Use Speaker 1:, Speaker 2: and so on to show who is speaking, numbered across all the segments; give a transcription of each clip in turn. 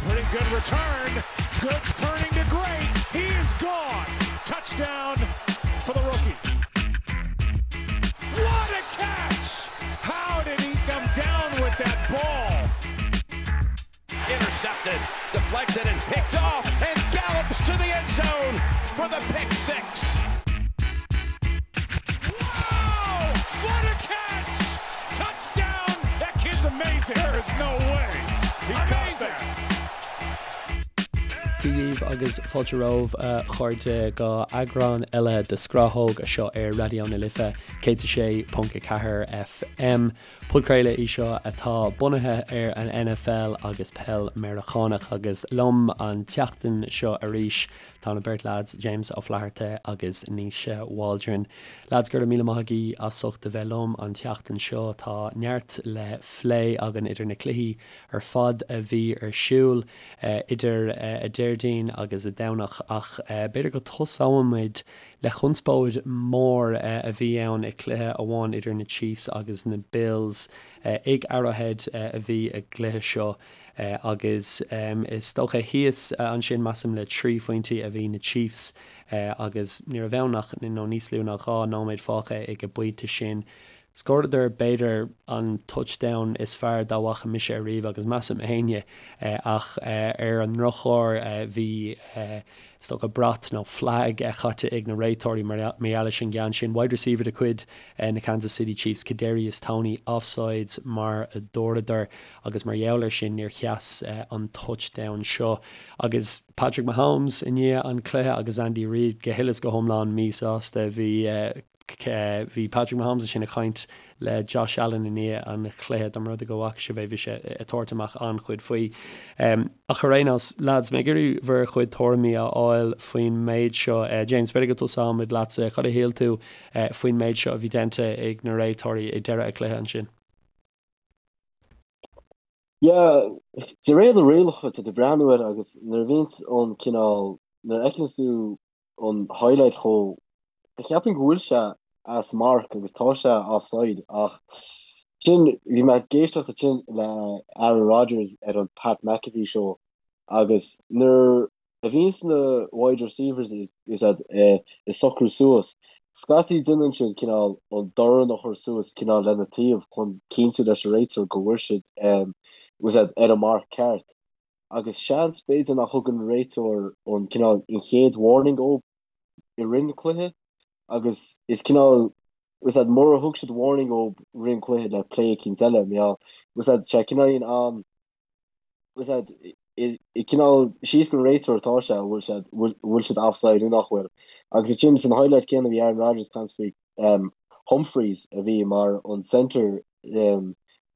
Speaker 1: Pretty good return. Good turning to great. He is gone. Touchdown for the rookie. What a catch! How did he come down with that ball?
Speaker 2: Intercepted, deflected, and picked off, and gallops to the end zone for the pick
Speaker 1: 6. Wow! What a catch! Touchdown! That kid's amazing. There is no way. He amazing.
Speaker 3: Dia dhaoibh agus fáilte romhaibh a chairde go eagrán eile de Scrathóg anseo ar Raidió na Life 106.4 FM. Podchraoladh í seo atá bunaithe ar an NFL agus peil Meiriceánach agus liom an tseachtain seo arís tá na beirt leaids James Ó Flatharta agus Naoise Waldron. Leaids go raibh míle maith agaibh as ucht a bheith liom an tseachtain seo. Tá neart le phlé againn idir na cluichí ar fad a bhí ar siúl idir a Déardaoin agus a Domhnach ach b'fhéidir go tosóimid le conspóid mhór a bhí ann i cluiche amháin idir na Chiefs agus na Bills. Ag Arrowhead a bhí a gcluiche seo agus is dócha thíos ansin measaim le 3 phointí a bhí na Chiefs agus ní raibh ann ach nó níos lú ná 2 nóiméad fágtha ag an bpointe sin. Scóradar b'fhéidir an touchdown is fearr dá bhfaca mise ariamh agus measaim éinne ach ar an ndrochuair bhí is dócha brat nó flag caite ag na réiteoirí mar gheall leis an gceann sin. Wide receiver de chuid na Kansas City Chiefs Kadarius Toney offsides mar a dúradar agus mar gheall ar sin níor sheas an touchdown seo agus Patrick Mahomes i ndiaidh an cluiche agus Andy Reid go huile is go hiomlán míshásta. Bhí Bhí Patrick Mahomes ansin ag caint le Josh Allen i ndiaidh an chluiche, dá mba rud é go bhfaca sibh é, bhí sé ag tabhairt amach an-chuid faoi. Ach ar aon nós, lads, mé ag iarraidh bhur chuid tuairimí a fháil faoin méid seo. James, b'fhéidir go dtosóimid leatsa. Cad a shíl tú faoin méid seo a bhí déanta ag na réiteoirí ag deireadh an chluiche ansin?
Speaker 4: Yeah, de réir na rialacha, tá tú ag breathnú air agus nuair a bhíonns an cineál, nuair a fheiceanns tú an highlight chomh cheapfainn go bhfuil sé as marc agus tá sé offside ach sin bhí mé ag éisteacht ansin le Aaron Rodgers ar an Pat McAfee show agus nuair a bhíonns na wide receivers is ag socrú suas scaití déanann siad cineál an dorn a chur suas cineál lena taobh chun cinntiú leis an réiteoir go bhfuil siad ar an marc ceart. agus seans b'fhéidir nach thug an réiteoir an cineál an chéad warning dóibh i rith an cluiche agus is cineál was that mura thug siad warning dóibh rith an cluiche le play eicínt eile mar gheall was that sé cineál an was that i cineál síos gon réiteoir atá sé bhfuil siad bhfuil siad offside nó nach bhfuil agus ansin san highlight céanna bhí Aaron Rodgers ag caint faoi Humphries a bhí mar an centre ar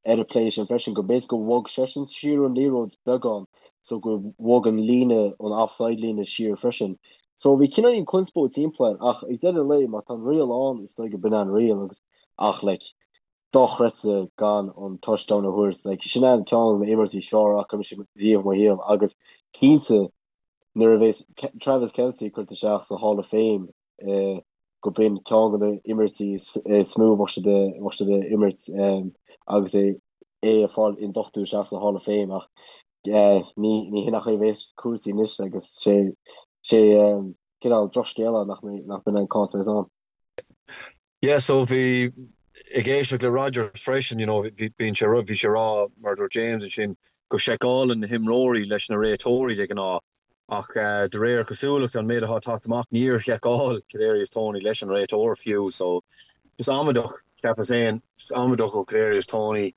Speaker 4: an play sin freisin, go b'fhéidir go bhog seisean siar an liathróid beagán so go bhog an líne, an offside líne siar freisin. So bhí cineáilín conspóid timpeall air ach ag deireadh an lae má tá an riail ann is dóigh go b'in an riail agus ach like dochreidte gan an touchdown a thabhairt like sin an ceann de na imeachtaí is fearr a fhaca mise riamh i mo shaol agus cinnte nuair a bheas Travis Kelce curtha isteach sa Hall of Fame go b'in ceann de na imirtí is mó a bheadh siad bheadh siad a imirt agus é é ag fáil induchtú isteach sa Hall of Fame ach ní ní hin an chaoi a bheas cúrsaí anois agus sé sé cineál drochscéal nach mbeidh nach b'in an cás a bheas ann.
Speaker 5: Yeah so bhí ag éisteacht le Rodgers freisin you know bhí bíonn sé bhí sé ag rá mar a dúirt James ansin go seiceálann na himreoirí leis na réiteoirí de ghnáth Ach de réir cosúlachta, an méid atá ag teacht amach, níor sheiceáil Kadarius Toney leis an réiteoir fiú. So, just amaideach, cheapas féin, just amaideach ó Kadarius Toney.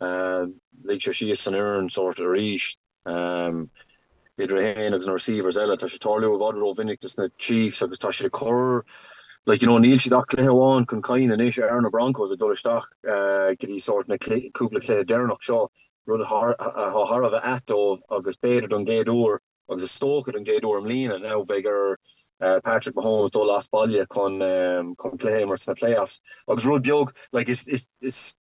Speaker 5: Lig sé síos an fhoireann sórt arís. Idir é féin agus na receivers eile, tá sé ag tarlú i bhfad rómhinic dos na Chiefs agus tá siad ag cur, like, you know, níl siad ach cluiche amháin chun cinn anois ar na Broncos ag dul isteach go dtí sórt na cúpla cluiche deireanach seo. rud atá thar a bheith ait dóibh agus b'fhéidir don gcéad uair, agus is dócha don gcéad uair i mbliana now, beidh ar Patrick Mahomes dul as baile chun cluiche a imirt sna playoffs. Agus rud beag, like, is, is, is,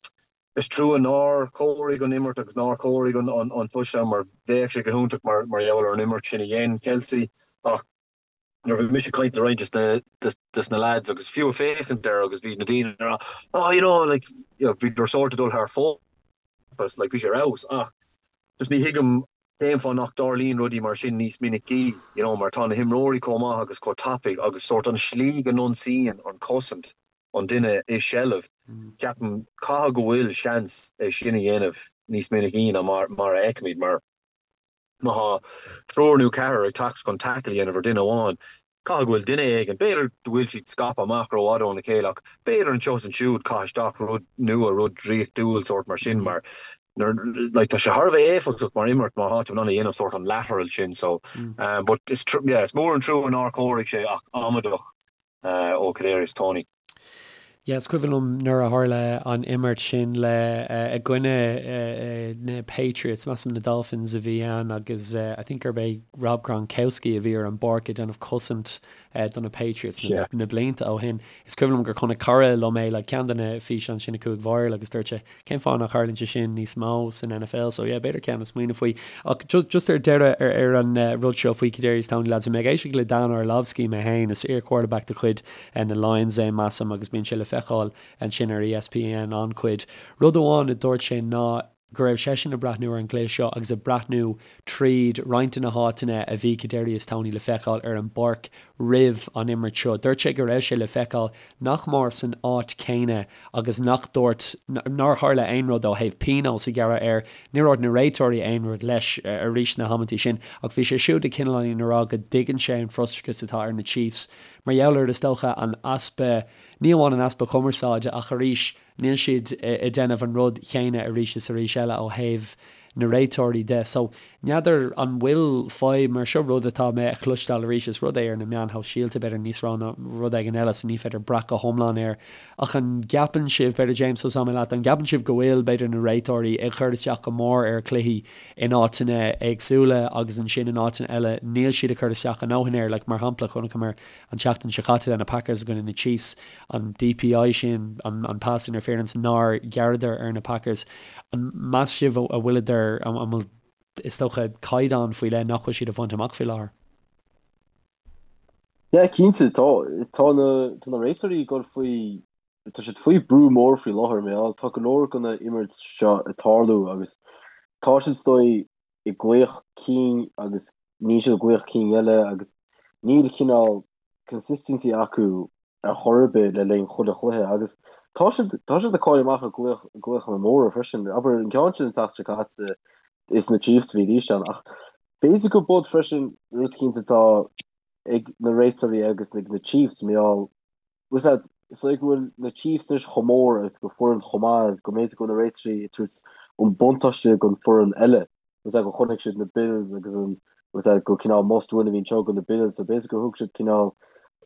Speaker 5: is trua nár chomhair an imirt agus nár chomhair an, an touchdown mar bheadh sé go hiontach mar, mar gheall ar an imirt sin a dhein Kelce ach nuair a bhí mise ag caint le roinnt des na lads agus fiú ag féachaint air agus bhí na daoine ag rá oh you know like you know bhíodar sórt ag dul thar fóir like bhí sé ar fheabhas ach just ní thuigim. Cén fáth nach dtarlaíonn rudaí mar sin níos minicí, you know, mar tá na himreoirí chomh maith agus chomh tapaidh agus sórt an slí go n-ionsaíonn an chosaint an duine i seilbh, ceapaim, caithfidh go bhfuil seans é sin a dhéanamh níos minicí ná mar mar a fheicimid, mar má thá triúr nó ceathrar ag teacht chun tackle a dhéanamh ar duine amháin, Caithfidh go bhfuil duine éigin, b'fhéidir go bhfuil siad scaipthe amach rófhada óna chéile ach b'fhéidir anseo is ansiúd caith isteach rud nua, rud draíochtúil sórt mar sin mar like tá sé thar a bheith éifeachtach mar imirt má thá tú in ann a dhéanamh sórt an lateral sin so but is yeah is mór an trua nár chóirigh sé ach amaideach ó Kadarius Toney.
Speaker 3: Yeah, is cuimhin liom nuair a tharla an imirt sin le i gcoinne na Patriots, measaim na Dolphins a bhí ann agus I think gurb é Rob Gronkowski a bhí ar an bpáirc ag déanamh cosaint do na Patriots na blianta ó shin. Is cuimhin liom gur chonaic cara liom é like ceann de na físeáin sin a chuaigh viral agus dúirt sé Cén fáth nach tharlaíonn sé sin níos mó san NFL? So yeah, b'fhéidir ceann le smaoineamh faoi. Ach just ar deireadh ar ar an rud seo faoi Kadarius Toney lads, bhí mé ag éisteacht le Dan Orlovsky mé féin, is iar-quarterback de chuid na Lions é measaim agus bíonn sé le feiceáil ansin ar ESPN an-chuid. Rud amháin a dúirt sé ná go raibh seisean ag breathnú ar an gcluiche seo agus ag breathnú tríd roinnt de na háiteanna a bhí Kadarius Toney le feiceáil ar an bpáirc roimh an imirt seo. Dúirt sé go raibh sé le feiceáil nach mór san áit chéanna agus nach dúirt, nár tharla aon rud ó thaobh pionós a ghearradh air. Níor dhúirt na réiteoirí aon rud leis arís na hamantaí sin ach bhí sé siúd ag cineáilín a rá go dtuigeann sé an frustrachas atá ar na Chiefs mar gheall ar, is dócha, an easpa, ní amháin an easpa cumarsáide ach arís níl siad ag déanamh an rud chéanna arís is arís eile ó thaobh na réiteoirí de. So, n'fheadar an bhfuil fadhb mar seo, rud atá mé a chloisteáil arís, is rud é ar na meáin shóisialta b'fhéidir níos mó ná rud éigin eile so ní féidir brath go hiomlán air. Ach an gceapann sibh, b'fhéidir James tosóidh mé leat, an gceapann sibh go bhfuil b'fhéidir na réiteoirí ag cur isteach go mór ar chluichí in áiteanna éagsúla agus ansin in áiteanna eile níl siad ag cur isteach a ndóthain air, like mar shampla chonaiceamar an tseachtain seo caite le na Packers i gcoinne na Chiefs, an DPI sin, an pass interference nár ghearradar ar na Packers. An meas sibh a bhfuileadar, an bhfuil, is dócha, caighdeán faoi leith nach bhfuil siad a bhaint amach faoi láthair?
Speaker 4: Yeah, cinnte, tá, tá na, tá na réiteoirí ag dul faoi, tá siad faoi brú mór faoi láthair, mar gheall, tá go leor de na imirt seo ag tarlú agus tá siad is dóigh ag glaoch cinn agus níl siad ag glaoch cinn eile agus níl cineál consistency acu ar chor ar bith le linn chuile chluiche agus tá siad tá siad ag cailleadh amach ar glaoch glaochanna móra freisin. Abair an ceann sin an tseachtain seo caite is na Chiefs a bhí ann ach b'fhéidir go bud freisin rud eicínt atá ag na réiteoirí agus ag na Chiefs mar gheall Bhfuil a fhios agat, is dóigh go bhfuil na Chiefs anois chomh mór agus go foireann chomh maith agus go mb'fhéidir go bhfuil na réiteoirí ag tabhairt an buntáiste don foireann eile. Bhfuil a fhios agat, go chonaic siad na Bills agus an, bhfuil a fhios agat, go cineál must win a bhí anseo do na Bills so b'fhéidir gur thug siad cineál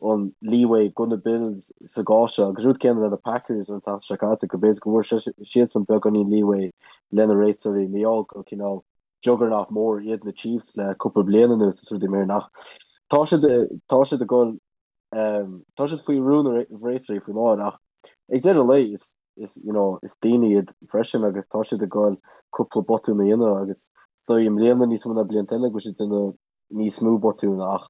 Speaker 4: an leeway do na Bills sa gcás seo agus rud céanna le na Packers an tseachtain seo caite go b'fhéidir go bhfuair siadsan beagáinín leeway le na réiteoirí mar gheall go cineál juggernaut mór iad na Chiefs le cúpla bliain anuas is rudaí mar sin ach tá siad tá siad ag dul Tá siad faoi bhrú na réiteoirí faoi láthair ach ag deireadh an lae is is you know is daoine iad freisin agus tá siad ag goil cúpla botún a dhéanamh agus is dóigh i mbliana níos mó ná blianta eile go bhfuil siad ag déanamh níos mó botún ach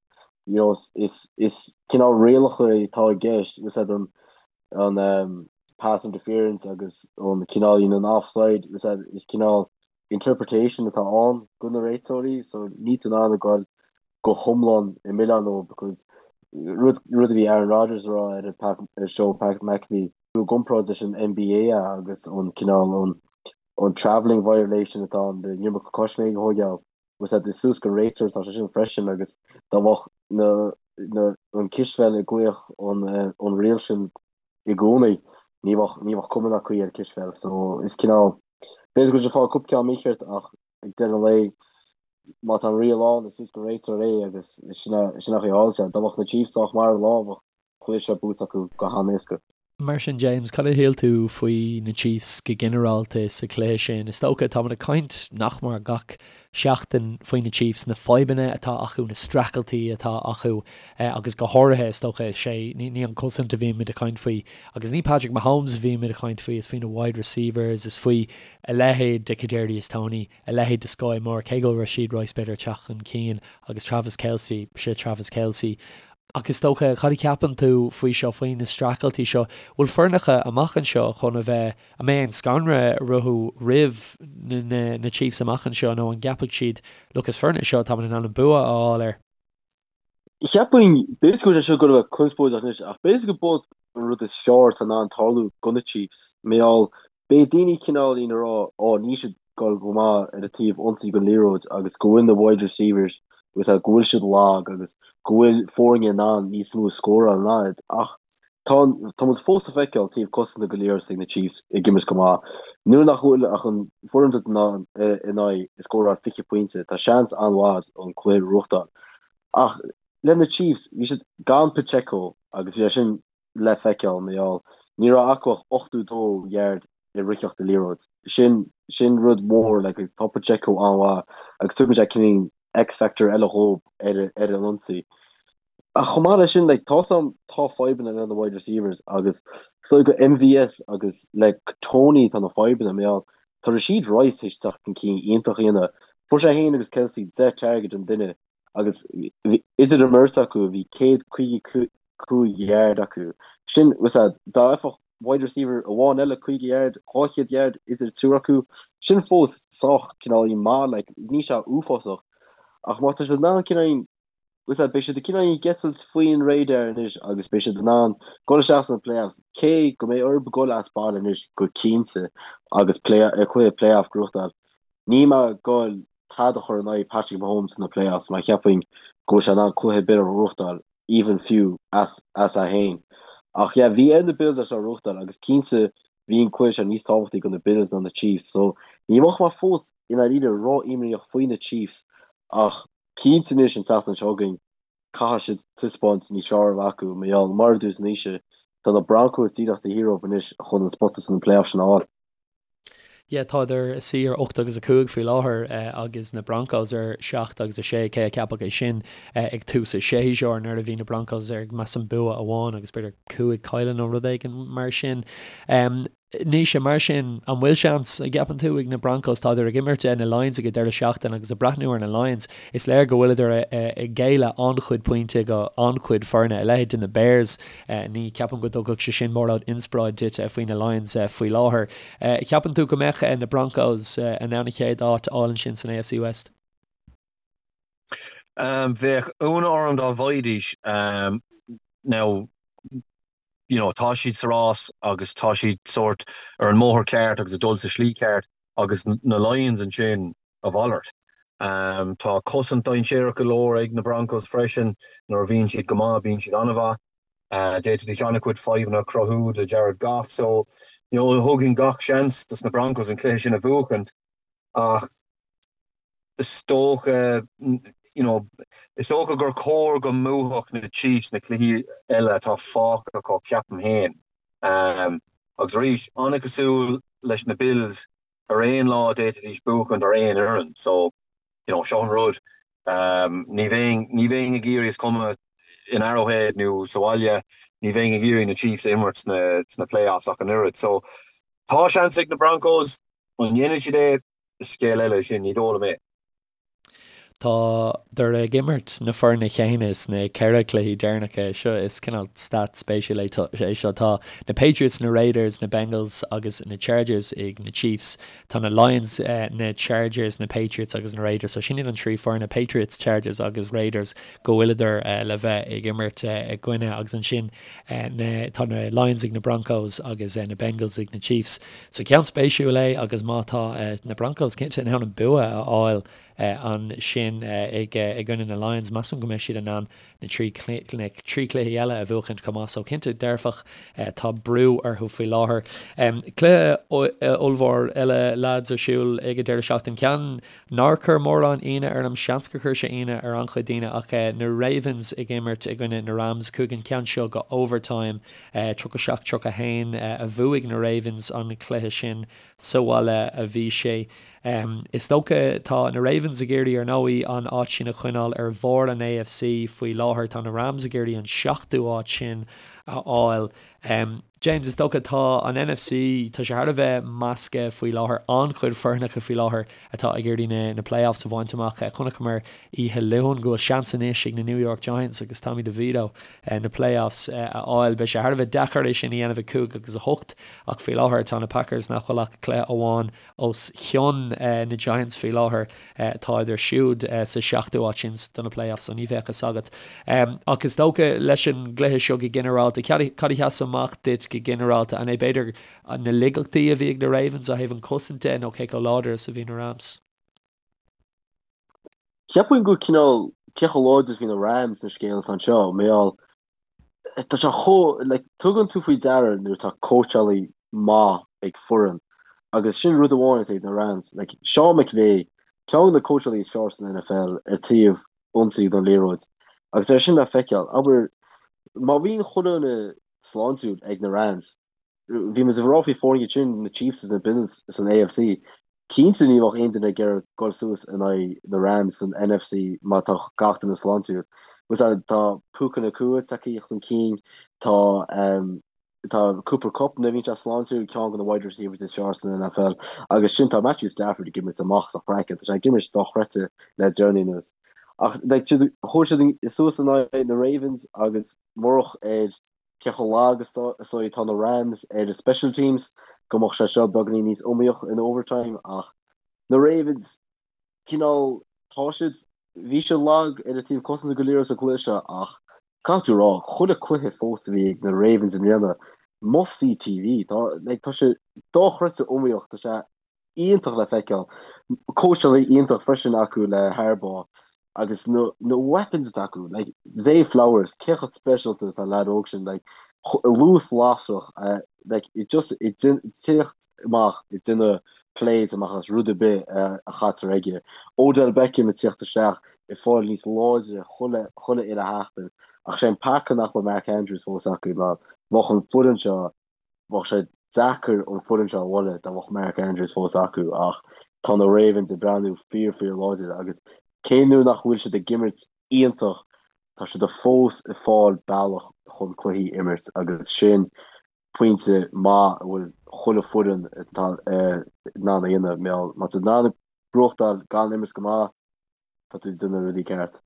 Speaker 4: you know is is cineál rialacha atá i gceist bhfuil a fhios agat an an um, pass interference agus an cineál you know, an offside bhfuil a fhios agat is cineál interpretation atá ann do na réiteoirí so níl tú in ann a goil go hiomlán ag milleán leo because rud rud a bhí Aaron Rodgers a rá ar an Pat ar show Pat McAfee i gcomparáid leis an NBA agus an cineál an an travelling violation atá ann an iomarca coisméig a thógáil bhfuil a fhios agat is suas don réiteoir atá sé sin freisin agus dá mbeadh na na an cispheil ag glaoch an an riail sin i gcónaí ní bheadh ní bheadh cuma ná caoi ar cispheil so is cineál b'fhéidir go bhfuil siad ag fáil cúpla ceann mícheart ach ag deireadh an lae, má tá an riail ann, is suas don réiteoir é agus sin an chaoi a tharla sé. Dá mbeadh na Chiefs sách maith ar an lá, bheadh cluiche seo buaite acu go han-éasca.
Speaker 3: Mar sin, James, cad a shíl tú faoi na Chiefs go ginearálta sa chluiche sin? Is dócha, táimid ag caint nach mór gach seachtain faoi na Chiefs, na fadhbanna atá acu, na streachailtí atá acu agus go háirithe, is dócha, sé, ní an cosaint a bhímid ag caint faoi agus ní Patrick Mahomes a bhímid ag caint faoi, is faoi na wide receivers, is faoi a leithéid de Kadarius Toney, a leithéid de Skyy Moore, cé go bhfuil Rashee Rice b'fhéidir ag teacht chun cinn, agus Travis Kelce, sé Travis Kelce. Ach is dócha, cad a cheapann tú faoi seo, faoi na streachailtí seo? Bhfuil foirneacha amach anseo chun a bheith, an mbeidh aon scanradh orthu roimh na Chiefs amach anseo nó an gceapfaidh siad, look, is foireann é seo táimid in ann an bua a fháil air?
Speaker 4: Cheapfainn, b'fhéidir go bhfuil sé seo ag goil a bheith conspóideach anois, ach b'fhéidir go b'iod an rud is fearr atá in ann tarlú do na Chiefs, mar gheall, beidh daoine cineáilín ag rá, ó níl siad goil go maith ar an taobh ionsaí den liathróid agus go bhfuil na wide receivers agus go bhfuil siad lag agus go bhfuil foirne in ann níos mó a scóráil ná iad ach tá tá muid fós ag feiceáil taobh cosanta den liathróid ag na Chiefs ag imirt go maith. Nuair nach bhfuil ach an foireann atá in ann in aghaidh ag scóráil 20 pointe tá seans an-mhaith an cluiche a ghnóthachtáil. Ach le na Chiefs bhí siad gan Pacheco agus bhí sé sin le feiceáil mar gheall ní raibh acu ach 82 yard i ritheacht an liathróid. Sin sin rud mór like agus tá Pacheco an-mhaith agus tugann sé cineál X-factor eile dhóibh ar ar an ionsaí. Ach chomh maith leis sin like tá sam tá fadhbanna le na wide receivers agus is dóigh go MVS agus le Toney tá na fadhbanna mar gheall tá Rashee Rice théis teacht chun cinn iontach a dhéanamh. Fuair sé féin agus Kelce 10 target an duine agus idir an mbeirt acu bhí 155 yard acu. Sin, was that, dá bhfaigheadh wide receiver amháin eile 50 yard, 200 yard idir triúr acu, sin fós sách cineáilín maith, like, níl sé uafásach. Ach má tá siad in ann cineáilín, was that, beidh siad cineáilín ag eitilt faoin radar anois agus beidh siad in ann dul isteach sna playoffs, cé go mbeidh orthu dul as baile anois go cinnte agus play, cluiche playoff a ghnóthachtáil. Níl mé ag goil tada a chur in aghaidh Patrick Mahomes sna playoffs mar cheapfainn go bhfuil sé in ann cluiche ar bith a ghnóthachtáil, even fiú as as é féin. Ach yeah, bhí ar na Bills é seo a ghnóthachtáil agus cinnte bhí an cluiche seo níos tábhachtaí do na Bills ná na Chiefs so ní bheadh mé fós i ndáiríre ró-imníoch faoi na Chiefs ach cinnte anois an tseachtain seo chugainn caithfidh siad taispeáint níos fearr a bheith acu mar gheall mar a dúirt Naoise tá na Broncos díreach taobh thiar dhóibh anois chun an spota sna playoffs sin a fháil.
Speaker 3: Yeah, tádar ina suí ar 8 agus 5 faoi láthair agus na Broncos ar 7 agus 6, cé a cheapfadh é sin ag tús an tséasúir nuair a bhí na Broncos ar measaim bua amháin agus b'fhéidir 5 cailleadh nó rud éigin mar sin. Naoise, mar sin, an bhfuil seans, an gceapann tú, ag na Broncos, tádar ag imirt na Lions ag an deireadh seachtaine agus ag breathnú ar na Lions, is léir go bhfuileadar ag géilleadh an-chuid pointe go an-chuid foirne, a leithéid de na Bears. Ní cheapaim go dtugfadh sé sin mórán inspioráid duit faoi na Lions faoi láthair. Ceapann tú go mbeadh na Broncos in ann an chéad áit a fháil ansin san AFC West?
Speaker 5: Bheadh ionadh orm dá bhfaighidís. Now, you know, tá siad sa rás agus tá siad sórt ar an mbóthar ceart agus ag dul sa slí ceart agus na Lions ansin, a mhalairt. Tá cosaint dainséarach go leor ag na Broncos freisin. Nuair a bhíonn siad go maith, bíonn siad an-mhaith. D'fhéadfaidís an-chuid fadhbanna a chruthú do Jared Goff. So, you know, thugfainn gach seans dos na Broncos an cluiche sin a bhuachaint ach is dócha, you know, is dócha gur chóir go mbuafadh na Chiefs na cluichí eile atá fágtha acu, ceapaim féin. Agus arís, an-chosúil leis na Bills, ar aon lá d'fhéadfaidís buachaint ar aon fhoireann so you know seo an rud ní bheinn ní bheinn ag iarraidh is cuma in Arrowhead nó sa bhaile ní bheinn ag iarraidh na Chiefs a imirt sna sna playoffs ach an oiread so tá seans ag na Broncos an ndéanfaidh siad é is scéal eile é sin ní dóigh liom é.
Speaker 3: Tádar ag imirt na foirne chéanna sna ceithre cluichí deireanacha seo. Is cineál stat spéisiúil é seo. Tá na Patriots, na Raiders, na Bengals agus na Chargers ag na Chiefs. Tá na Lions, na Chargers, na Patriots agus na Raiders. So sin iad an trí foirne, Patriots, Chargers agus Raiders, go bhfuileadar le bheith ag imirt i gcoinne. Agus ansin tá na Lions ag na Broncos agus na Bengals ag na Chiefs. So ceann spéisiúil é agus má tá na Broncos cinnte in ann an bua a fháil ansin i gcoinne na Lions, measaim go mbeidh siad in ann na trí chluichí eile a bhuachaint chomh maith. So cinnte dearfach tá brú orthu faoi láthair. Cluiche ollmhór eile lads ar siúl ag an deireadh seachtaine. Ceann nár chuir mórán ionadh orm, seans gur chuir sé ionadh ar an-chuid daoine ach na Ravens ag imirt i gcoinne na Rams. Chuaigh an ceann seo go overtime. 37, 31 a bhuaigh na Ravens an cluiche sin. Sa bhaile a bhí sé. Is dócha, tá na Ravens ag iarraidh, ar ndóigh, an áit sin a choinneáil ar bharr an AFC faoi láthair. Tá na Rams ag iarraidh an seachtú áit sin. a fháil. James, is dócha, tá an NFC, tá sé thar a bheith measctha faoi láthair, an-chuid foirneacha faoi láthair atá ag iarraidh na playoffs a bhaint amach. Chonaiceamar oíche Luain go bhfuil seans anois ag na New York Giants agus Tommy DeVito na playoffs a fháil. Beidh sé thar a bheith deacair é sin a dhéanamh ag 5 agus 8 ach faoi láthair tá na Packers nach bhfuil ach cluiche amháin os cionn na Giants faoi láthair. Táid siúd sa seachtú áit sin do na playoffs so ní bheadh fhios agat. Ach is dócha leis an gcluiche seo go ginearálta, cad a sheas amach duit go ginearálta? An é b'fhéidir na laigeachtaí a bhí ag na Ravens ó thaobh an chosaint de nó cé chomh láidir is a bhí na Rams?
Speaker 4: Cheapfainn go cineál cé chomh láidir is a bhí na Rams an scéal atá anseo, mar gheall Tá sé chomh, like, tugann tú faoi deara nuair atá cóitseálaí maith ag foireann agus sin rud amháin atá ag na Rams. Like, Sean McVay, ceann de na cóitseálaí is fearr san NFL ar taobh ionsaí don liathróid agus é sin le feiceáil. Abair, má bhíonn chuile dhuine sláintiúil ag na Rams, Bhí muid ag rá faoi foirne sin, na Chiefs is na Bills san AFC. Cinnte ní bheadh aon duine ag iarraidh dul suas in aghaidh na Rams san NFC má tá gach duine sláintiúil. Tá Puka Nacua tagtha chun cinn, tá tá Cooper Kupp nuair a bhíonn sé sláintiúil, ceann de na wide receivers is fearr san NFL. Agus sin tá Matthew Stafford ag imirt amach as a chraiceann, tá sé ag imirt dochreidte le deireanaí anuas. Ach like chuaigh siad suas in aghaidh na Ravens agus murach ar cé chomh lag is atá na Rams ar a special teams, go mbeadh sé seo beagáinín níos iomaíoch in overtime ach na Ravens, cineál, tá siad, bhí siad lag ar an taobh cosanta go léir sa gcluiche seo ach caithfidh tú a rá, chuile cluiche fós a bhí ag na Ravens i mbliana, must see TV, tá, like, tá sé dochreidte iomaíoch, tá sé iontach le feiceáil. Cóitseálaí iontach freisin acu le Harbaugh agus na na weapons atá acu, like Zay Flowers, cé chomh speisialta is atá an leaid óg sin, like luas lasrach, like it just ag tíocht amach ag déanamh plays amach as rud ar bith a chaitear aige. Odell Beckham ag tíocht isteach ag fáil níos láidre chuile chuile uile sheachtain ach sé an peaca nach bhfuil Mark Andrews fós acu mar bheadh an foireann seo Bheadh sé deacair an foireann seo a bhualadh dá mbeadh Mark Andrews fós acu ach tá na Ravens ag breathnú fíor fíor láidir agus cé nuair nach bhfuil siad ag imirt iontach tá siad fós ag fáil bealach chun cluichí a imirt agus sin pointe maith a bhfuil chuile foireann in ann a dhéanamh má tá tú in ann buachtáil gan imirt go maith tá tú ag déanamh rudaí ceart.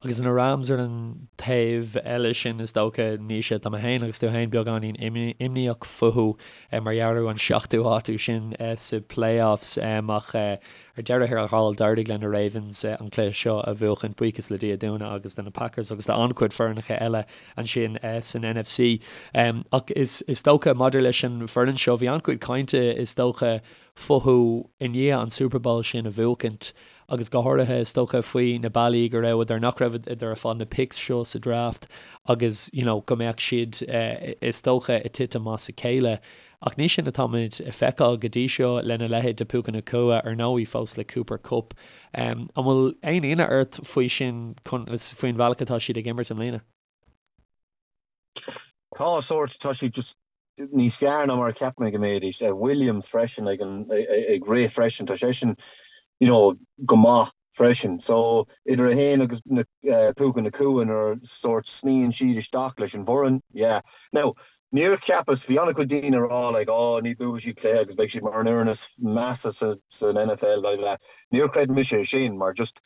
Speaker 3: Agus na Rams ar an taobh eile sin, is dócha, Naoise, tá mé féin agus tú féin beagáinín imníoch fúthu mar gheall ar an seachtú háit sin sa playoffs ach ar deireadh thiar thall d'éirigh le na Ravens an cluiche seo a bhuachan, buíochas le Dia dúinne agus do na Packers agus do an-chuid foirneacha eile ansin san NFC. Ach is dócha maidir leis an bhfoireann seo, bhí an-chuid cainte is dócha fúthu i ndiaidh an Super Bowl sin a bhuachaint agus go háirithe is dócha faoi na bealaí go rabhadar, nach rabhadar ag fáil na picks seo sa draft agus you know go mbeadh siad is dócha ag titim as a chéile. Ach ní sin atáimid ag feiceáil go dtí seo lena leithéid de Puka Nacua, ar ndóigh fós le Cooper Kupp. An bhfuil aon ionadh ort faoi sin, faoin bhealach atá siad ag imirt i mbliana?
Speaker 5: Tá sórt, tá siad just níos fearr ná mar a cheap mé go mbeidís. Williams freisin ag an ag rith freisin, tá seisean you know go maith freisin. So idir é féin agus na Puka Nacua nuair sórt sníonn siad isteach leis an bhfoireann, yeah. Now níor cheapas, bhí an-chuid daoine ag rá like oh ní buafaidh siad cluiche agus beidh siad mar an fhoireann is measa sa san NFL blah blah. Níor chreid mise é sin mar just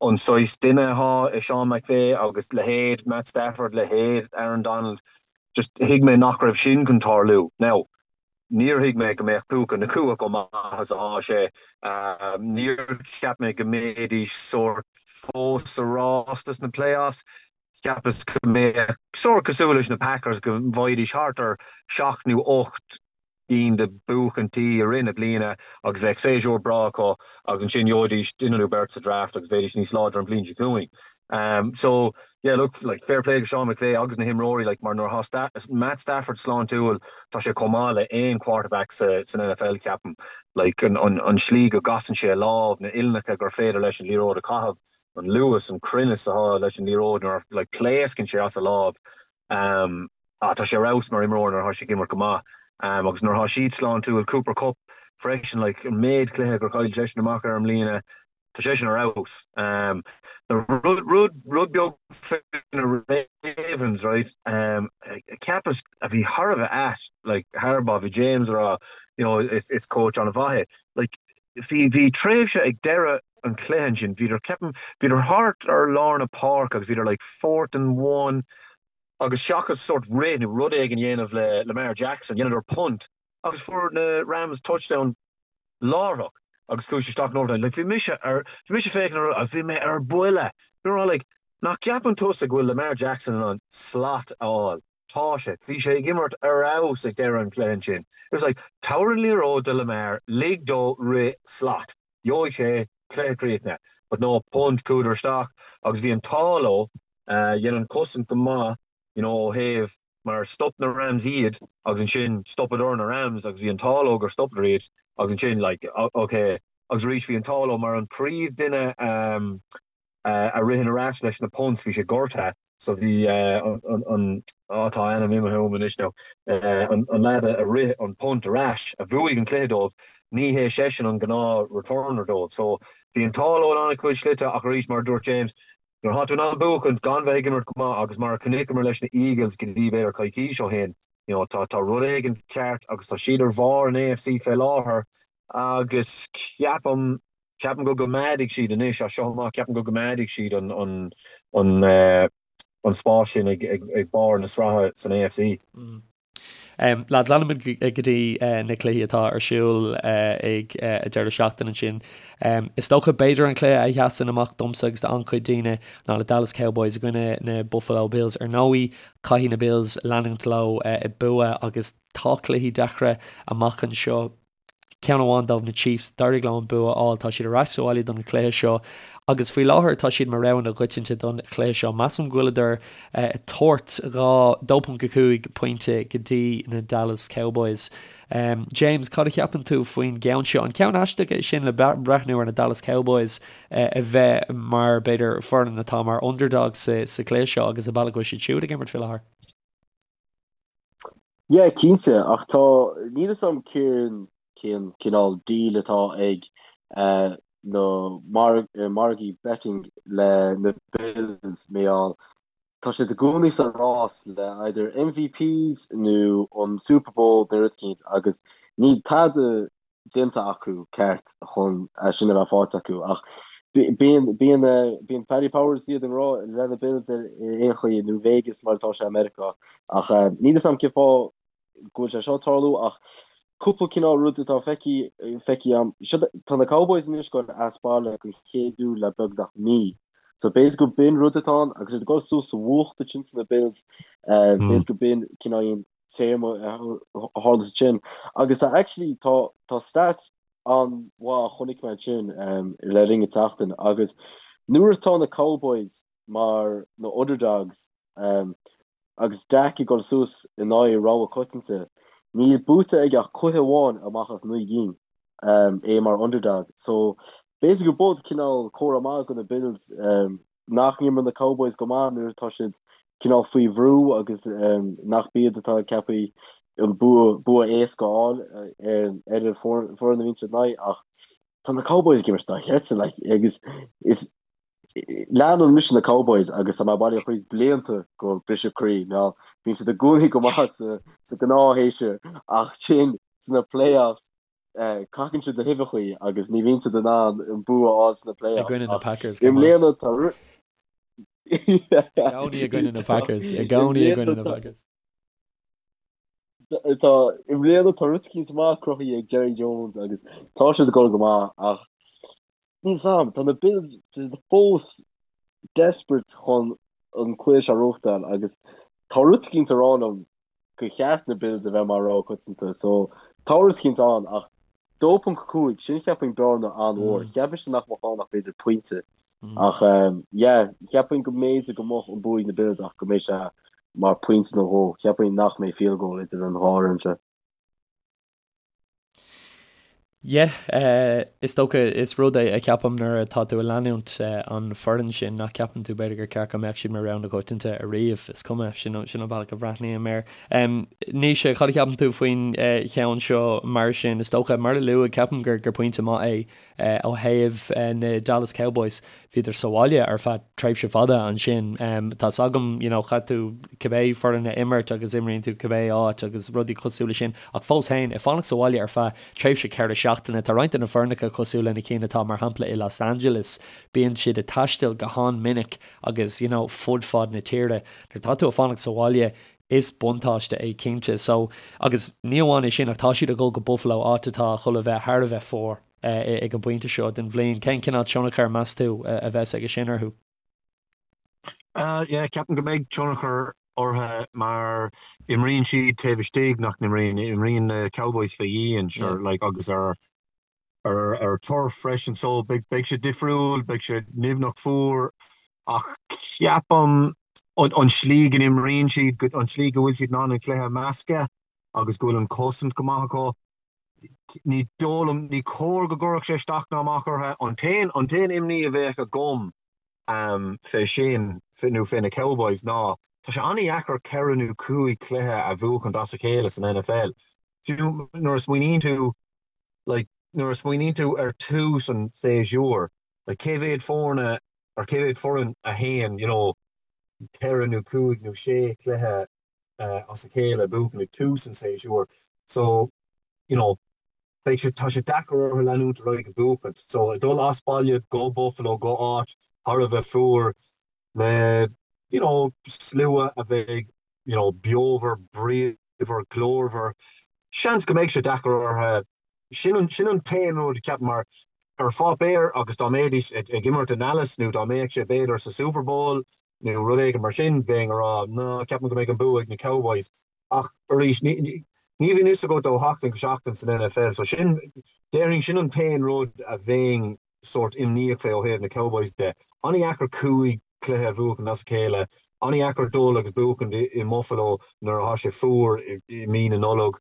Speaker 5: an saghas duine atá i Sean McVay agus leithéid Matt Stafford, leithéid Aaron Donald, just thuig mé nach raibh sin chun tarlú. Now, níor thuig mé go mbeadh Puka Nacua chomh maith is atá sé. Níor cheap mé go mbeidís sórt fós sa rás dos na playoffs. Cheapas go mbeadh sórt cosúil leis na Packers go bhfaighidís thart ar sheacht nó ocht gcinn de buachaintí i rith na bliana agus bheadh séasúr breá acu agus ansin gheobhaidís duine nó beirt sa draft agus bheidís níos láidre an bhliain seo chugainn. So yeah look like fair play go Sean McVay agus na himreoirí like mar nuair atá Matt Stafford sláintiúil tá sé chomh maith le aon quarterback sa san NFL ceapaim. Like an an an slí go gcasann sé a lámh, na uillinneacha gur féidir leis an liathróid a chaitheamh, an luas, an cruinneas atá leis an liathróid nuair like pléascann sé as a lámh. Ah, tá sé ar fheabhas mar imreoir nuair atá sé ag imirt go maith. Agus nuair atá siad sláintiúil, Cooper Kupp freisin, like, an méid cluiche gur chaill seisean amach ar i mbliana, Tá seisean ar fheabhas. Rud, rud, rud beag faoi na Ravens, right, cheapas a bhí thar a bheith ait, like, Harbaugh, bhí James ag rá, you know, is, is coach an-mhaith é. Like, bhí, bhí tréimhse ag deireadh an chluiche ansin, bhíodar, ceapaim, bhíodar thart ar lár na páirce agus bhíodar like fourth and one agus seachas sort rith nó rud éigin a dhéanamh le Lamar Jackson, dheineadar punt agus fuair na Rams touchdown láithreach agus chuaigh sé isteach in overtime. Like bhí mise ar, bhí mise ag féachaint ar, bhí mé ar buile. Bhí mé like, nach gceapann tusa go bhfuil Lamar Jackson in ann slat a fháil? Tá sé. Bhí sé ag imirt ar fheabhas ag deireadh an chluiche ansin. It was like, tabhair an liathróid do Lamar, lig dó rith slat. Gheobhaidh sé cluiche críochnaithe. But no, punt, chuadar isteach agus bhí an t-ádh leo. Dhein an cosaint go maith, you know, ó thaobh mar stop na Rams iad agus ansin stopadar na Rams agus bhí an t-ádh leo gur stopadar iad agus ansin like ok agus arís bhí an t-ádh leo mar an príomh duine um, a ritheann ar ais leis na punts bhí sé gortaithe so bhí an, an, an á tá a ainm imithe uaim anois now an, an lad a rith an punt ar ais a bhuaigh an cluiche dóibh ní hé seisean an gnáth returner dóibh so bhí an t-ádh leo in an-chuid slite ach arís mar a dúirt James Nuair atá tú in ann buachaint gan bheith ag imirt go maith agus mar a chonaiceamar leis na Eagles go dtí b'fhéidir coicís ó shin, you know, tá tá rud éigin ceart agus tá siad ar bharr an AFC fé láthair agus ceapaim, ceapaim go gcoimeádfaidh siad anois as seo amach, ceapaim go gcoimeádfaidh siad an an an an spás sin ag ag ag barr na sraithe san AFC.
Speaker 3: Lads, leanfaimid go dtí na cluichí atá ar siúl ag an deireadh seachtaine ansin. Is dócha, b'fhéidir an cluiche a sheasann amach domsa agus d'an-chuid daoine ná na Dallas Cowboys i gcoinne na Buffalo Bills. Ar ndóigh, caithfidh na Bills leanúint leo ag bua agus tá cluichí deacra amach anseo. Ceann amháin dóibh, na Chiefs, d'éirigh leo an bua a fháil. Tá siad ar ais sa bhaile don chluiche seo agus faoi láthair tá siad mar rogha na gcoitianta don chluiche seo. Measaim go bhfuileadar ag tabhairt 2.5 pointe go dtí na Dallas Cowboys. James, cad a cheapann tú faoin gceann seo? An ceann aisteach é sin le breathnú ar na Dallas Cowboys a bheith mar, b'fhéidir, foireann atá mar underdogs sa chluiche seo agus an bealach go bhfuil siad siúd ag imirt faoi láthair?
Speaker 4: Yeah, cinnte, ach tá, níl fhios a'm cén cén cineál deal atá ag na margaí betting le na Bills mar gheall tá siad i gcónaí sa rás le either MVPs nó an Super Bowl nó rud eicínt agus níl tada déanta acu ceart chun é sin a bheith faighte acu ach bíonn bíonn bíonn Paddy Powers iad i ngrá le na Bills ar aon chaoi nó Vegas mar atá sé i Meiriceá ach níl fhios a'm cén fáth go bhfuil sé seo ag tarlú ach cúpla cineál rud atá feicthe feicthe a'm seo tá na Cowboys anois ag dul as baile don chéad uair le beagnach mí so b'fhéidir go b'in rud atá ann agus iad ag dul suas sa bhfuacht ansin sna Bills b'fhéidir go b'in cineál téama a tharla ansin agus tá actually tá tá stat an-mhaith a chonaic mé ansin le linn an tseachtain agus nuair atá na Cowboys mar na underdogs agus Dak ag dul suas in aghaidh rogha coitianta níl buaite aige ach cluiche amháin amach as 9 gcinn é mar underdog so b'fhéidir go b'in cineál comhartha maith do na Bills nach n-imríonn na Cowboys go maith nuair atá siad cineál faoi bhrú agus nach b'iad atá ceaptha an bua bua éasca a fháil ar an foireann a bhíonn siad in aghaidh ach tá na Cowboys ag imirt dochreidte like agus is leanann mise na Cowboys agus tá mé bailithe chuig blianta go briseadh croí mar bíonn siad i gcónaí go maith sa sa gnáthshéasúr ach sin sna playoffs Cacann siad na huibheachaí agus ní bhíonn siad in ann an bua a fháil sna
Speaker 3: I
Speaker 4: playoffs
Speaker 3: gcoinne na
Speaker 4: ach
Speaker 3: Packers
Speaker 4: i
Speaker 3: go maith.
Speaker 4: mbliana tá
Speaker 3: I gcónaí i gcoinne na Packers. I
Speaker 4: i
Speaker 3: gcónaí i gcoinne
Speaker 4: mbliana
Speaker 3: na
Speaker 4: tá
Speaker 3: Packers.
Speaker 4: tá i mbliana tá rud eicínt maith cruthaithe ag Jerry Jones agus tá siad ag dul go maith ach níl 's a'm tá na Bills siad fós desperate chun an cluiche seo a ghnóthachtáil agus tá rud eicínt ag rá liom gur cheart na Bills a bheith mar rogha coitianta so tá rud eicínt ann ach 2.5 sin cheapfainn bearna an-mhór. Cheap mise nach mbeadh ann ach b'fhéidir pointe ach yeah cheapfainn go mb'fhéidir go mbeadh an bua ag na Bills ach go mbeidh sé mar pointe nó dhó. Cheapfainn nach mbeidh field goal idir an dhá fhoireann seo.
Speaker 3: Yeah, is dócha, is rud é a cheapaim nuair atá tú ag leanúint an foireann sin nach ceapann tú b'fhéidir gur ceart go mbeadh siad mar rogha na coitianta ariamh. Is cuma, sin sin an bealach a bhreathnaím air. Naoise, cad a cheapann tú faoin cheann seo mar sin? Is dócha, mar a luadh, ceapaim gur gur pointe maith é. Ó thaobh na Dallas Cowboys, bhíodar sa bhaile ar feadh tréimhse fada ansin. Tá's agam, you know, chaith tú cibé foireann a imirt agus imríonn tú cibé áit agus rudaí cosúil leis sin, ach fós féin, ag fanacht sa bhaile ar feadh tréimhse 4 seachtaine, tá roinnt de na foirneacha cosúil le na cinn atá mar shampla i Los Angeles, bíonn siad ag taisteal go han-minic agus, you know, fud fad na tíre. Nuair atá tú ag fanacht sa bhaile, is buntáiste é cinnte. So, agus ní amháin é sin ach tá siad ag dul go Buffalo, áit atá chun a bheith thar a bheith fuar ag an bpointe seo den bhliain. Cén cineál tionchar, meas tú, a bheas aige sin orthu?
Speaker 5: Yeah, ceapaim go mbeidh tionchar orthu mar imríonn siad taobh istigh, nach n-imríonn? Imríonn na Cowboys fé dhíon, sure, like, agus ar ar turf freisin so beidh sé difriúil, beidh sé nimhneach fuar ach ceapaim an slí go n-imríonn siad, an slí go bhfuil siad in ann an cluiche a mheascadh agus go bhfuil an chosaint go maith acu, ní dóigh liom, ní cóir go gcuirfeadh sé isteach ná amach orthu. An t-aon, an t-aon imní a bheadh agam fé sin, nó fé na Cowboys ná tá sé an-dheacair 4 nó 5 cluiche a bhuachaint as a chéile san NFL. Fiú nuair a smaoiníonn tú like nuair a smaoiníonn tú ar tús an tséasúir, like cé mhéad foirne or cé mhéad foireann a théann, you know, 4 nó 5 nó 6 cluiche as a chéile a bhuachan ag tús an tséasúir. So, you know, beidh sé, tá sé deacair orthu leanúint ar aghaidh ag buachaint. So, ag dul as baile go Buffalo, go áit thar a bheith fuar le, you know, slua a bheidh, you know, beomhar, bríomhar, glórmhar, seans go mbeidh sé deacair orthu. Sin an, sin an t-aon rud, ceapaim, mar ar pháipéar agus dá mbeidís ag imirt i nDallas nó dá mbeadh sé b'fhéidir sa Super Bowl nó rud éigin mar sin, bheinn ag rá, ná, ceapaim go mbeidh an bua ag na Cowboys. Ach arís, ní, ní bhíonn fhios agat ó sheachtain go seachtain san NFL, so sin, déarfainn, sin an t-aon rud a bheinn sórt imníoch fé ó thaobh na Cowboys de. An-dheacair 5 cluiche a bhuachan as a chéile, an-dheacair dul agus buachan i mBuffalo nuair atá sé fuar i mí na Nollag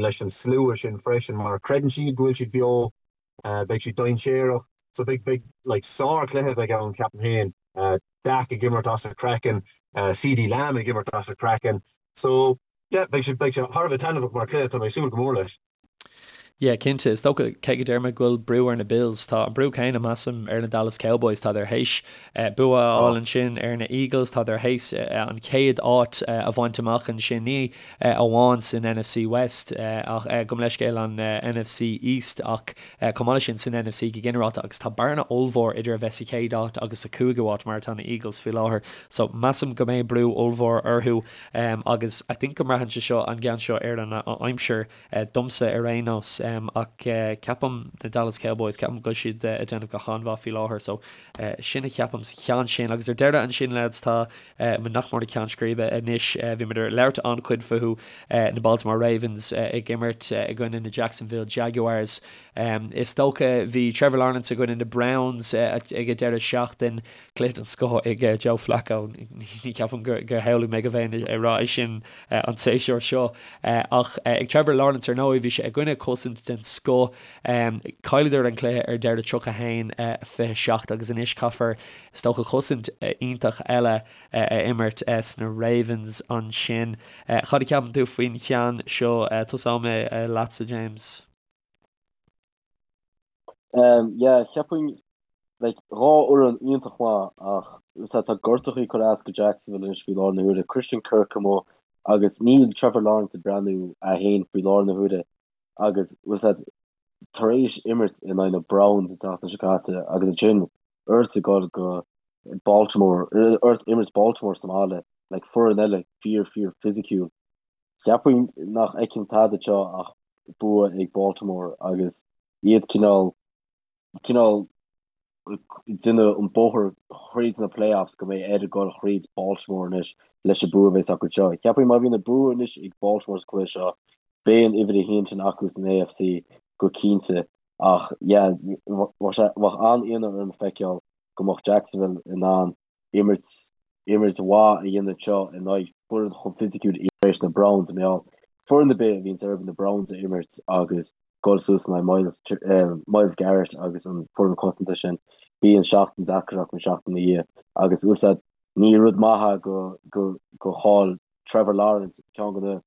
Speaker 5: leis an slua sin freisin mar creideann siad go bhfuil siad beo, beidh siad dainséarach. So beidh, beidh like sár-chluiche a bheidh ann ceapaim féin. Dak ag imirt as a chraiceann, CeeDee Lamb ag imirt as a chraiceann. So yeah, beidh sé, beidh sé thar a bheith taitneamhach mar chluiche, tá mé ag súil go mór leis.
Speaker 3: Yeah, cinnte. Is dócha, cé go deir mé go bhfuil brú ar na Bills, tá an brú céanna, measaim, ar na Dallas Cowboys. Tádar théis bua a fháil ansin ar na Eagles, tádar théis an chéad áit a bhaint amach ansin, ní amháin san NFC West ach, gabh mo leithscéal, an NFC East ach chomh maith leis sin san NFC go ginearálta agus tá bearna ollmhór idir a bheith sa chéad áit agus sa chúigiú áit mar atá na Eagles faoi láthair. So, measaim go mbeidh brú ollmhór orthu agus I think go mbraitheann sé seo, an ceann seo, ar an aimsir. Domsa ar aon nós. Ach ceapaim na Dallas Cowboys, ceapaim go bhfuil siad ag déanamh go han-mhaith faoi láthair. So sin a cheapaim sa cheann sin. Agus ar deireadh ansin lads, tá muid nach mór ag ceann scríbe anois. Bhí muid ag labhairt an-chuid fúthu, na Baltimore Ravens ag imirt i gcoinne na Jacksonville Jaguars. Is dócha bhí Trevor Lawrence i gcoinne na Browns ag an deireadh seachtain. Cluiche den scoth ag Joe Flacco. Ní cheapaim gur shamhlaigh mé go mbeinn ag rá é sin an séasúr seo. Ach ag Trevor Lawrence ar ndóigh, bhí sé i gcoinne cosaint den scoth. Chailleadar an cluiche ar deireadh 31, 27 agus anois caithfear is dócha cosaint iontach eile a imirt sna Ravens ansin. Cad a cheapann tú faoin cheann seo? Tosóidh mé leatsa James.
Speaker 4: Yeah, cheapfainn, like, 2 fhoireann iontach maith ach sea, tá gortachaí ag cur as go Jacksonville anois faoi láthair na huaire, Christian Kirk amuigh agus níl Trevor Lawrence ag breathnú é féin faoi láthair na huaire agus bhfuil a fhios agat tar éis imirt in aghaidh na Browns an tseachtain seo caite agus ansin ort ag dul go Baltimore, ort imirt Baltimore sa mbaile, like, foireann eile fíor fíor fisiciúil. Cheapfainn nach fheicim tada anseo ach bua ag Baltimore agus iad cineál, cineál ag déanamh an bóthar thríd na playoffs go mbeidh air dul thríd Baltimore anois leis an bua a bheas acu anseo. Cheapfainn má bhíonn an bua anois ag Baltimore sa chluiche seo, beidh an uimhir a haon sin acu san AFC go cinnte ach yeah, bheadh sé, bheadh an-ionadh orm feiceáil go mbeadh Jacksonville in ann imirt imirt mhaith a dhéanamh anseo in aghaidh foireann chomh fisiciúil tar éis na Browns, mar gheall foireann ar bith a bhíonns orthu na Browns a imirt agus dul suas in aghaidh Myles Myles Garrett agus an foireann cosanta sin, bíonn seachtain deacair acu an seachtain ina dhiaidh agus bhfuil a fhios agat ní rud maith é go go go chaill Trevor Lawrence ceann de na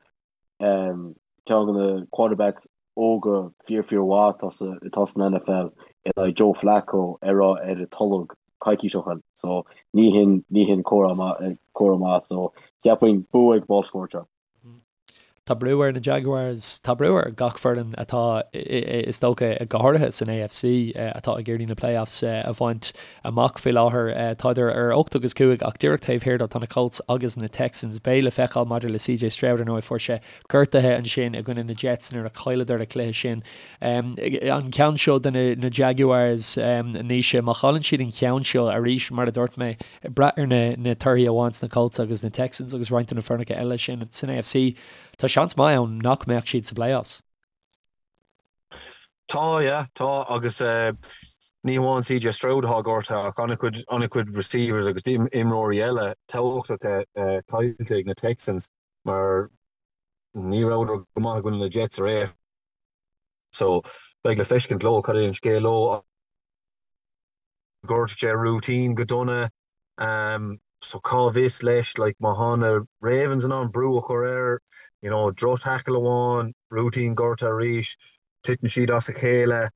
Speaker 4: ceann de na quarterbacks óga fíor fíor mhaith atá sa atá san NFL. in aghaidh Joe Flacco a raibh ar a tolg coicís ó shin so ní hin ní hin comhartha maith comhartha maith so cheapfainn bua ag Baltimore anseo.
Speaker 3: Tá brú ar na Jaguars, tá brú ar gach foireann atá, is dócha, go háirithe san AFC, atá ag iarraidh na playoffs a bhaint amach faoi láthair. Tádar ar 8 agus 5 ach díreach taobh thiar dó tá na Colts agus na Texans. Beidh le feiceáil maidir le CJ Stroud, ar ndóigh, fuair sé gortuithe ansin i gcoinne na Jets nuair a chailleadar an cluiche sin. An ceann seo do na Jaguars, Naoise, má chailleann siad an ceann seo arís, mar a dúirt mé, Ag brath ar na torthaí a bhain na Colts agus na Texans agus roinnt de na foirneacha eile sin san AFC, tá seans maith ann nach mbeadh siad sa playoffs.
Speaker 5: Tá, yeah, tá agus ní hamháin CJ Stroud atá gortaithe ach an-chuid, an-chuid receivers agus imreoirí eile tábhachtacha caillte ag na Texans mar ní rabhadar go maith i gcoinne na Jets aréir. So beidh le feiscint leo cad é an scéal leo. Ghortaigh sé Rúitín go dona so cá bhfios leis like má thá na Ravens in ann brú a chur air you know droch tackle amháin, Rúitín gortaithe arís, titeann siad as a chéile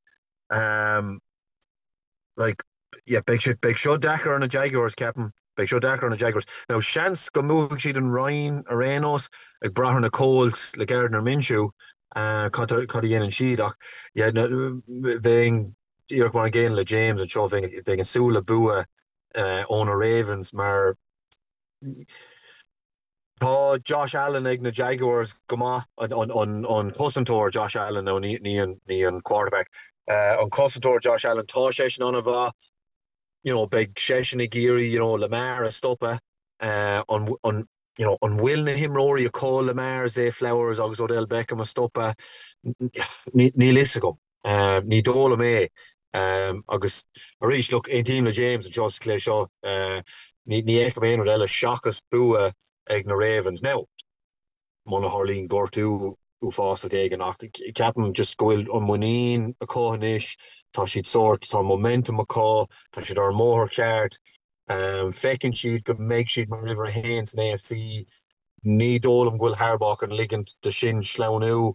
Speaker 5: like yeah beidh sé beidh seo deacair ar na Jaguars ceapaim, beidh seo deacair ar na Jaguars. Now seans go mbuafaidh siad an roinn ar aon nós ag brath ar na Colts le Gardner Minshew cad cad a dhéanann siad ach yeah bheinn Díreach mar an gcéanna le James anseo, bheinn ag súil le bua ó na Ravens mar tá Josh Allen ag na Jaguars go maith, an cosantóir Josh Allen, nó ní an quarterback, an cosantóir Josh Allen, tá seisean an-mhaith, you know, beidh seisean ag iarraidh, you know, Lamar a stopadh, an, an, you know, an bhfuil na himreoirí acu Lamar, Zay Flowers agus Odell Beckham a stopadh? Níl fhios agam. Ní dóigh liom é. Agus arís, look, aontaím le James anseo sa chluiche seo. Ní fheicim aon rud eile seachas bua ag na Ravens. Now, muna tharlaíonn gortú uafásach éigin, ach ceapaim just go bhfuil an muinín acu anois, tá siad sórt, tá an momentum acu, tá siad ar an mbóthar ceart, feiceann siad go mbeidh siad mar uimhir a haon san AFC. Ní dóigh liom go bhfuil Harbaugh chun ligint do sin sleamhnú.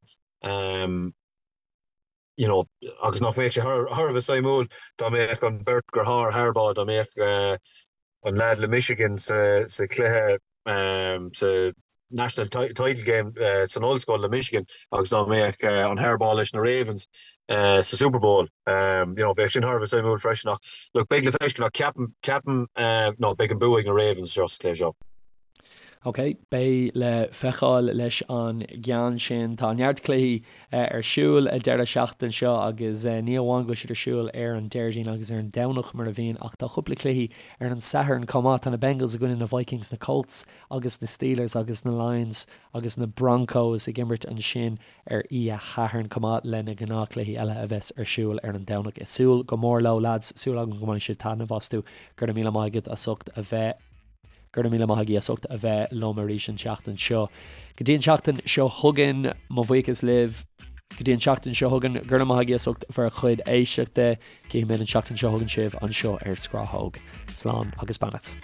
Speaker 5: You know, agus nach mbeadh sé thar a bheith suimiúil dá mbeadh an beirt deartháir Harbaugh, dá mbeadh an leaid le Michigan sa chluiche sa National Title Game san ollscoil le Michigan agus dá mbeadh an Harbaugh leis na Ravens sa Super Bowl. You know, bheadh sin thar a bheith suimiúil freisin ach look, beidh le feiscint ach ceapaim, ceapaim, no, beidh an bua ag na Ravens seo sa chluiche seo.
Speaker 3: Ok, beidh le feiceáil leis an gceann sin. Tá neart cluichí ar siúl an deireadh seachtaine seo agus ní amháin go bhfuil siad ar siúl ar an Déardaoin agus ar an Domhnach mar a bhíonn ach tá cúpla cluichí ar an Satharn chomh maith. Tá na Bengals i gcoinne na Vikings, na Colts agus na Steelers agus na Lions agus na Broncos ag imirt ansin ar oíche Shathairn chomh maith le na gnáthchluichí eile a bheas ar siúl ar an Domhnach. Ag súil go mór leo lads, súil agam go mbainfidh sibh taitneamh astu. Go raibh míle maith agat as ucht a bheith. Go raibh míle maith agaibh as ucht a bheith liom arís an tseachtain seo. Go dtí an tseachtain seo chugainn, mo bhuíochas libh. Go dtí an tseachtain seo chugainn, go raibh maith agaibh as ucht bhur chuid éisteachta. Cífidh mé an tseachtain seo chugainn sibh anseo ar Scrathóg. Slán agus beannacht.